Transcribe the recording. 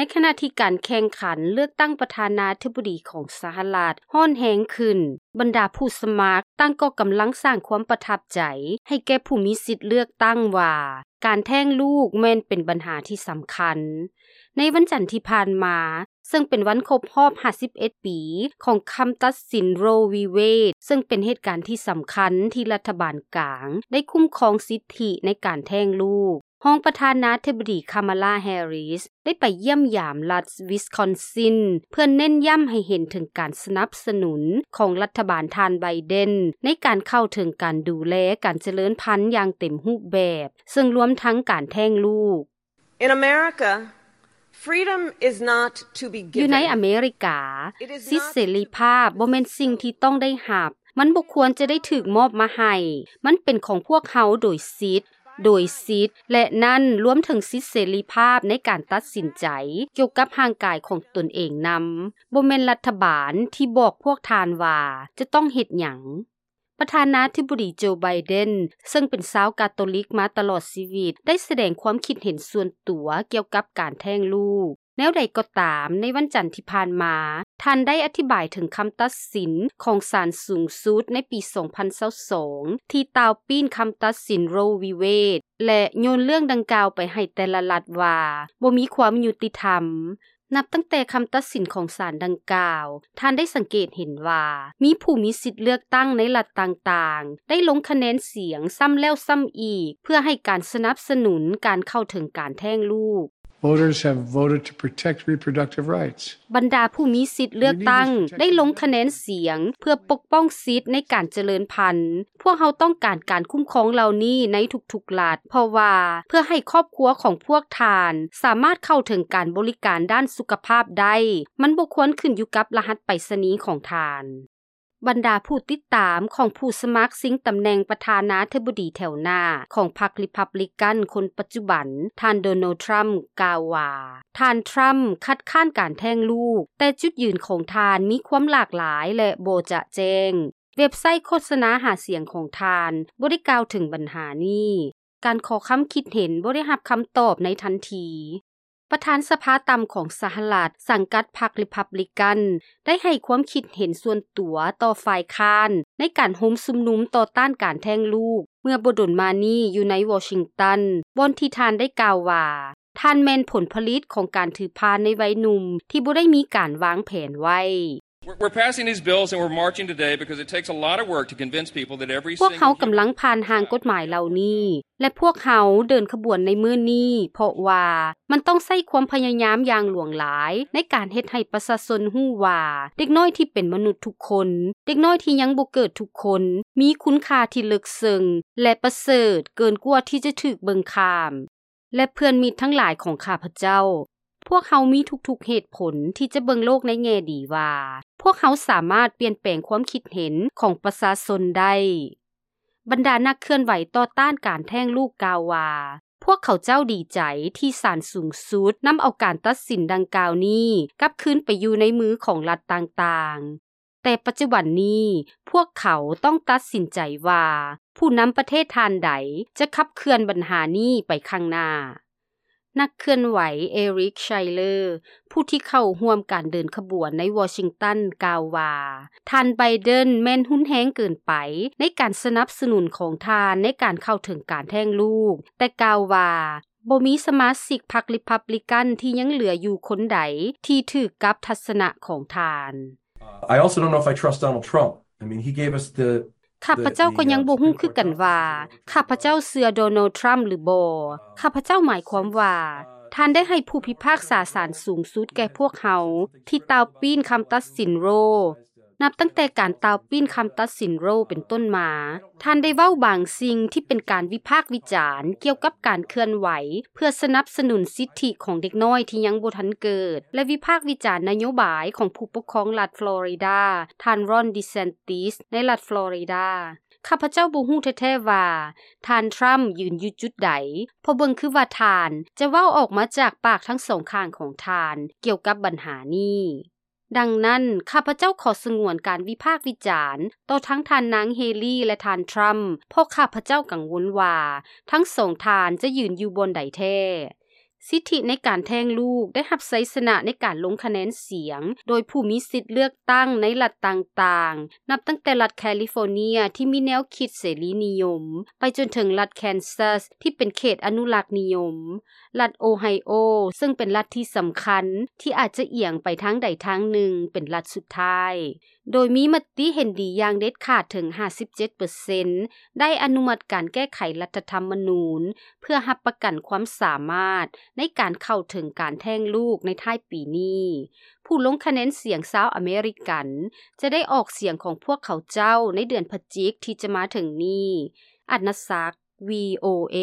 ໃນຂະນະທີ່ການແຂ່ງຂັນເລືອກຕັ້ງປະທານາທິບໍດີຂອງສະຫະລັດຮ້ອນແຮງຂຶ້ນ, ບັນດາຜູ້ສະໝັກຕ່າງກໍກຳລັງສ້າງຄວາມປະທັບໃຈໃຫ້ແກ່ຜູ້ມີສິດເລືອກຕັ້ງວ່າ ການແທ້ງລູກແມ່ນເປັນບັນຫາທີ່ສຳຄັນ. ໃນວັນຈັນທີ່ຜ່ານມາ, ເຊິ່ງເປັນວັນຄົບຮອບຫ້າສິບເອັດປີຂອງຄຳຕັດສິນ Roe v Wade, ເຊິ່ງເປັນເຫດການທີ່ສຳຄັນທີ່ລັດຖະບານກາງໄດ້ຄຸ້ມຄອງສິດທິໃນການແທ້ງລູກ, ຮອງປະທານາທິບໍດີ Kamala Harris ໄດ້ໄປຢ້ຽມຢາມລັດ Wisconsin ເພື່ອເນັ້ນຢ້ຳໃຫ້ເຫັນເຖິງການສະໜັບສະໜູນຂອງລັດຖະບານທ່ານ Biden ໃນການເຂົ້າເຖິງການດູແລການຈະເລີນພັນຢ່າງເຕັມຮູບແບບ, ເຊິ່ງລວມທັງການແທ້ງລູກ. In America, freedom is not to be given. ຢູ່ໃນອາເມລິກາ, ສິດເສລີພາບບໍ່ແມ່ນສິ່ງທີ່ຕ້ອງໄດ້ຮັບ. ມັນບໍ່ຄວນຈະໄດ້ຖືກມອບມາໃຫ້. ມັນເປັນຂອງພວກເຮົາໂດຍສິດ, ໂດຍສິດ, ແລະ ນັ້ນລວມເຖິງສິດເສລີພາບໃນການຕັດສິນໃຈກ່ຽວກັບຮ່າງກາຍຂອງຕົນເອງນຳ. ບໍ່ແມ່ນລັດຖະບານທີ່ບອກພວກທ່ານວ່າຈະຕ້ອງເຮັດຫຍັງ. ປະທານາທິບໍດີ Joe Biden ເຊິ່ງເປັນຊາວກາໂຕລິກມາຕະຫຼອດຊີວິດ ໄດ້ສະແດງຄວາມຄິດເຫັນສ່ວນຕົວກ່ຽວກັບການແທ້ງລູກ. ແນວໃດກໍຕາມ, ໃນວັນຈັນທີ່ຜ່ານມາ, ທ່ານໄດ້ອະທິບາຍເຖິງຄຳຕັດສິນຂອງສານສູງສຸດໃນປີສອງພັນຊາວສອງ ທີ່ຕ່າວປີ້ນຄຳຕັດສິນ Roe v Wade ແລະ ໂຍນເລື່ອງດັ່ງກ່າວໄປໃຫ້ແຕ່ລະລັດວ່າບໍ່ມີຄວາມຍຸຕິທຳ. ນັບຕັ້ງແຕ່ຄຳຕັດສິນຂອງສານດັ່ງກ່າວ, ທ່ານໄດ້ສັງເກດເຫັນວ່າມີຜູ້ມີສິດເລືອກຕັ້ງໃນລັດຕ່າງໆ ໄດ້ລົງຄະແນນສຽງຊ້ຳແລ້ວຊ້ຳອີກ ເພື່ອໃຫ້ການສະໜັບສະໜູນການເຂົ້າເຖິງການແທ້ງລູກ. Voters have voted to protect reproductive rights. ບັນດາຜູ້ມີສິດເລືອກຕັ້ງໄດ້ລົງຄະແນນສຽງເພື່ອປົກປ້ອງສິດໃນການຈະເລີນພັນ. ພວກເຮົາຕ້ອງການການຄຸ້ມຄອງເຫຼົ່ານີ້ໃນທຸກໆລັດ, ເພາະວ່າເພື່ອໃຫ້ຄອບຄົວຂອງພວກທ່ານສາມາດເຂົ້າເຖິງການບໍລິການດ້ານສຸຂະພາບໄດ້, ມັນບໍ່ຄວນຂຶ້ນຢູ່ກັບລະຫັດໄປສະນີຂອງທ່ານ. ບັນດາຜູ້ຕິດຕາມຂອງຜູ້ສະໝັກຊິງຕຳແໜ່ງປະທານາທິບໍດີແຖວໜ້າຂອງພັກ Republican ຄົນປັດຈຸບັນ, ທ່ານ Donald Trump ກ່າວວ່າ ທ່ານ Trump ຄັດຄ້ານການແທ້ງລູກ, ແຕ່ຈຸດຢືນຂອງທ່ານມີຄວາມຫຼາກຫຼາຍ ແລະ ບໍ່ຈະແຈ້ງ. ເວັບໄຊໂຄສະນາຫາສຽງຂອງທ່ານບໍ່ໄດ້ກ່າວເຖິງບັນຫານີ້. ການຂໍຄຳຄິດເຫັນບໍ່ໄດ້ຮັບຄຳຕອບໃນທັນທີ. ປະທານສະພາຕ່ຳຂອງສະຫະລັດ ສັງກັດພັກ Republican ໄດ້ໃຫ້ຄວາມຄິດເຫັນສ່ວນຕົວຕໍ່ຝ່າຍຄ້ານໃນການໂຮມຊຸມນຸມຕໍ່ຕ້ານການແທ້ງລູກ ເມື່ອບໍ່ດົນມານີ້ຢູ່ໃນວໍຊິງຕັນ, ບ່ອນທີ່ທ່ານໄດ້ກ່າວວ່າ ທ່ານແມ່ນຜົນຜະລິດຂອງການຖືພານໃນໄວໜຸ່ມທີ່ບໍ່ໄດ້ມີການວາງແຜນໄວ້. We're, we're passing these bills and we're marching today because it takes a lot of work to convince people that every single human ພວກເຮົາກຳລັງຜ່ານຮ່າງກົດໝາຍເຫຼົ່ານີ້ ແລະ ພວກເຮົາເດີນຂະບວນໃນມື້ນີ້ ເພາະວ່າມັນຕ້ອງໃຊ້ຄວາມພະຍາຍາມຢ່າງຫຼວງຫຼາຍໃນການເຮັດໃຫ້ປະຊາຊົນຮູ້ວ່າ ເດັກນ້ອຍທີ່ເປັນມະນຸດທຸກຄົນ, ເດັກນ້ອຍທີ່ຍັງບໍ່ເກີດທຸກຄົນ ມີຄຸນຄ່າທີ່ເລິກເຊິ່ງ ແລະ ປະເສີດເກີນກວ່າທີ່ຈະຖືກເບິ່ງຂ້າມ. ແລະ ເພື່ອນມິດທັງຫຼາຍຂອງຂ້າພະເຈົ້າ, ພວກເຮົາມີທຸກໆເຫດຜົນທີ່ຈະເບິ່ງໂລກໃນແງ່ດີວ່າ ພວກເຮົາສາມາດປ່ຽນແປງຄວາມຄິດເຫັນຂອງປະຊາຊົນໄດ້. ບັນດານັກເຄື່ອນໄຫວຕໍ່ຕ້ານການແທ້ງລູກກ່າວວ່າ ພວກເຂົາເຈົ້າດີໃຈທີ່ສານສູງສຸດນຳເອົາການຕັດສິນດັ່ງກ່າວນີ້ກັບຄືນໄປຢູ່ໃນມືຂອງລັດຕ່າງໆ. ແຕ່ປັດຈຸບັນນີ້ ພວກເຂົາຕ້ອງຕັດສິນໃຈວ່າ ຜູ້ນຳປະເທດທ່ານໃດຈະຂັບເຄື່ອນບັນຫານີ້ໄປຂ້າງໜ້າ. ນັກເຄື່ອນໄຫວ Eric Schuyler ຜູ້ທີ່ເຂົ້າຮ່ວມການເດີນຂະບວນໃນວໍຊິງຕັນ ກ່າວວ່າ ທ່ານ Biden ແມ່ນຮຸນແຮງເກີນໄປໃນການສະໜັບສະໜູນຂອງທ່ານໃນການເຂົ້າເຖິງການແທ້ງລູກ, ແຕ່ກ່າວວ່າ ບໍ່ມີສະມາຊິກພັກ Republican ທີ່ຍັງເຫຼືອຢູ່ຄົນໃດທີ່ຖືກກັບທັດສະນະຂອງທ່ານ. I also don't know if I trust Donald Trump. I mean, he gave us the ຂ້າພະເຈົ້າກໍຍັງບໍ່ຮູ້ຄືກັນວ່າ ຂ້າພະເຈົ້າເຊື່ອ Donald Trump ຫຼືບໍ່. ຂ້າພະເຈົ້າໝາຍຄວາມວ່າ ທ່ານໄດ້ໃຫ້ຜູ້ພິພາກສາສານສູງສຸດແກ່ພວກເຮົາ ທີ່ຕ່າວປີ້ນຄຳຕັດສິນ Roe. ນັບຕັ້ງແຕ່ການຕ່າວປີ້ນຄຳຕັດສິນ Roe ເປັນຕົ້ນມາ, ທ່ານໄດ້ເວົ້າບາງສິ່ງທີ່ເປັນການວິພາກວິຈານກ່ຽວກັບການເຄື່ອນໄຫວເພື່ອສະໜັບສະໜູນສິດທິຂອງເດັກນ້ອຍທີ່ຍັງບໍ່ທັນເກີດ ແລະ ວິພາກວິຈານນະໂຍບາຍຂອງຜູ້ປົກຄອງລັດຟລໍຣິດາ, ທ່ານ Ron DeSantis ໃນລັດຟລໍຣິດາ. ຂ້າພະເຈົ້າບໍ່ຮູ້ແທ້ໆວ່າ ທ່ານ Trump ຢືນຢູ່ຈຸດໃດ, ເພາະເບິ່ງຄືວ່າທ່ານຈະເວົ້າອອກມາຈາກປາກທັງສອງຂ້າງຂອງທ່ານກ່ຽວກັບບັນຫານີ້. ດັ່ງນັ້ນ, ຂ້າພະເຈົ້າຂໍສະຫງວນການວິພາກວິຈານຕໍ່ທັງທ່ານນາງ Haley ແລະ ທ່ານ Trump ເພາະຂ້າພະເຈົ້າກັງວົນວ່າທັງສອງທ່ານຈະຢືນຢູ່ບ່ອນໃດແທ້. ສິດທິໃນການແທ້ງລູກໄດ້ຮັບໄຊຊະນະໃນການລົງຄະແນນສຽງ ໂດຍຜູ້ມີສິດເລືອກຕັ້ງໃນລັດຕ່າງໆ ນັບຕັ້ງແຕ່ລັດແຄລິຟໍເນຍທີ່ມີແນວຄິດເສລີນິຍົມ ໄປຈົນເຖິງລັດແຄນຊັສທີ່ເປັນເຂດອະນຸລັກນິຍົມ, ລັດໂອໄຮໂອ ເຊິ່ງເປັນລັດທີ່ສຳຄັນທີ່ອາດຈະອຽງໄປທາງໃດທາງໜຶ່ງ ເປັນລັດສຸດທ້າຍ. ໂດຍມີມະຕິເຫັນດີຢ່າງເດັດຂາດເຖິງຫ້າສິບເຈັດເປີເຊັນ ໄດ້ອະນຸມັດການແກ້ໄຂລັດຖະທຳມະນູນ ເພື່ອຮັບປະກັນຄວາມສາມາດໃນການເຂົ້າເຖິງການແທ້ງລູກໃນທ້າຍປີນີ້. ຜູ້ລົງຄະແນນສຽງຊາວອາເມລິກັນ ຈະໄດ້ອອກສຽງຂອງພວກເຂົາເຈົ້າໃນເດືອນພະຈິກທີ່ຈະມາເຖິງນີ້. ອັດນະສັກ ວີໂອເອ.